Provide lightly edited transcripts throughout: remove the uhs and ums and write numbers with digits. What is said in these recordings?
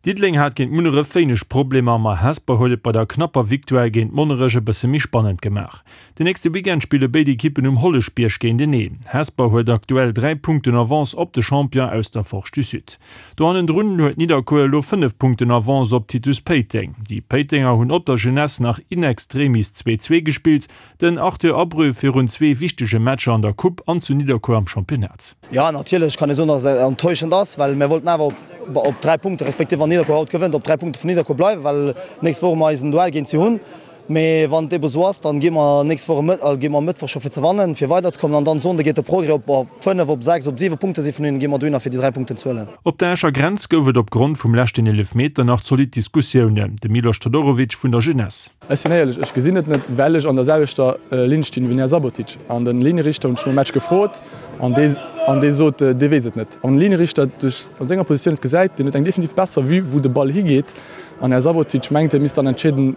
Diddeleng hat géint Munneref wéineg Problemer, ma Hesper huet et bei der knapper Victoire géint Monnerech e bësse méi spannend gemaach. Den nächste Weekend spille béid Ekippen um Holleschbierg géinteneen. Hesper huet aktuell 3 Punkten Avance op de Champion aus der Forge du Sud. Do hannendrun huet Nidderkuer elo 5 Punkten Avance op Titus Péiteng. Déi Péitenger hunn op der Jeunesse nach in extremis 2, 2 gespillt. Den Arthur Abreu virun zwee wichtege Matcher an der Coupe an zu Nidderkuer am Championnat. Jo, natierlech kann ee soen, datt et enttäuschend ass, well mir wollten awer op 3 Punkte, respektiv wann Nidderkuer haut gewënnt, op 3 Punkte vun Nidderkuer bleiwen, well d'nächst Woch mer eisen Duell géint si hunn. Mee wann et ebe sou ass, dann gi mer nächst Woch e gi mer e Mëttwoch scho fir ze wannen, fir weiderzekommen an dann Sonnde geet de Progrès op op 5, op 6, op 7 Punkte si vun hinnen, gi mer dohinner fir déi 3 Punkten ze huelen. Op der Escher Grenz gouf et op Grond vum leschten Eelefmeter nach zolidd Diskussiounen. De Milos Todorovic vun der Jeunesse. Ech sinn éierlech, ech gesinn et net, well ech an der selwechter Linn stinn wéi den Här Sabotic. An de Linierichter hunn ech nom Match gefrot an dee an dee sot, dee weess et net. An den Linierichter duerch an senger Positioun et gesäit, deen huet eng definitiv besser Vue wou de Ball higeet. An Här Sabotic mengt, hie misst dann entscheeden.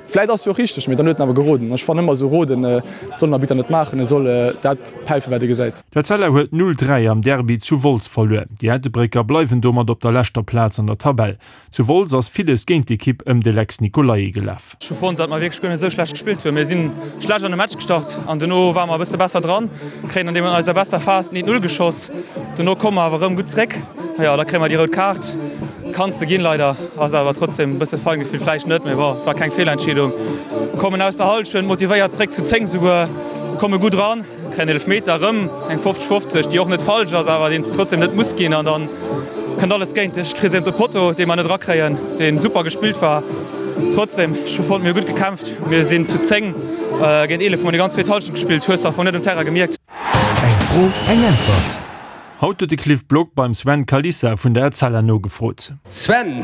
Vläit ass jo och richteg, mee dann huet en awer geroden. Ech fannen ëmmer esou roden, dat soll en Arbitter net maachen, e soll dat päifen wat e gesäit. D'Etzella huet 0, 3 am Derby zu Wolz verluer. Déi Ettelbrécker bleiwen domat op der leschter Plaz an der Tabell. Zu Wolz ass villes géint d'Ekipp ëm de Lex Nicolai gelaf. Ech hu fonnt, datt mer wierklech guer net esou schlecht gespillt hunn. Mir si schlecht an de Match gestart an dono ware mer e bësse besser dran, kréien an deem an eiser besser Phas den 1-0 geschoss. Dono komme mer awer erëm gutt zréck. Jo, da kréie mer déi rout Kaart. Kanns de ginn, leider. Ass awer trotzdem e bësse Feingefill vläicht net, mee bon, war keng Feelentscheedung. Kommen aus der Hallschent motivéiert zréck, zu 10 souguer, komme gutt ran. Kréien Eelefmeter, erëm eng 50, 50, déi och net falsch ass, awer deen s de trotzdem net muss ginn. An dann kënnt alles géint dech. Kriss een op de Potto, dee mer net erakréien, dee super gespillt war. Trotzdem, ech hu fonnt, mir hu gutt gekämpft. Mir sinn zu 10 géint 11, hu mer déi ganz zweet Hallschent gespillt, hues de am Fong net um Terrain gemierkt. Eng Fro, eng Äntwert. Haut huet de Cliff Block beim Sven Kalisa vun der Etzella nogefrot. Sven,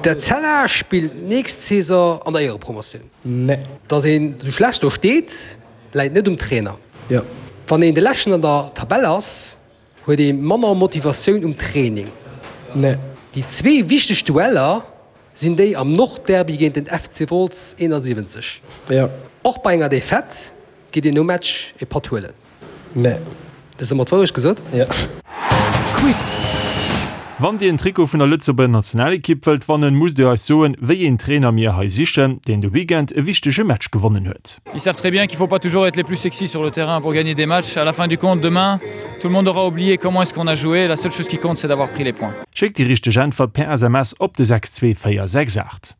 D'Etzella spillt nächst Saison an der Éierepromotioun. Nee. Dass een sou schlecht do steet, Läit net um Trainer. Jo. Wann een de Leschten an der Tabell ass, huet ee manner Motivatioun um Training. Nee. Déi zwee wichteg Dueller sinn déi am Nordderby géint den FC Wolz 71. Jo. Och bei enger Defaite geet een nom Match e Patt huelen. Nee. Hues de mer d'Wourecht gesot? Jo. Quiz! Wann Dir en Trikot vun der Lëtzebuerger Nationalekipp wëllt wannen, musst Dir eis soen, wéi een Trainer mir hei sichen, deen de Weekend e wichtege Match gewonnen huet. Ils savent très bien qu'il faut pas toujours être les plus sexy sur le terrain pour gagner des matchs. À la fin du compte, demain, tout le monde aura oublié comment est-ce qu'on a joué. La seule chose qui compte, c'est d'avoir pris les points. Schéckt déi richteg Äntwert per SMS op de 62468.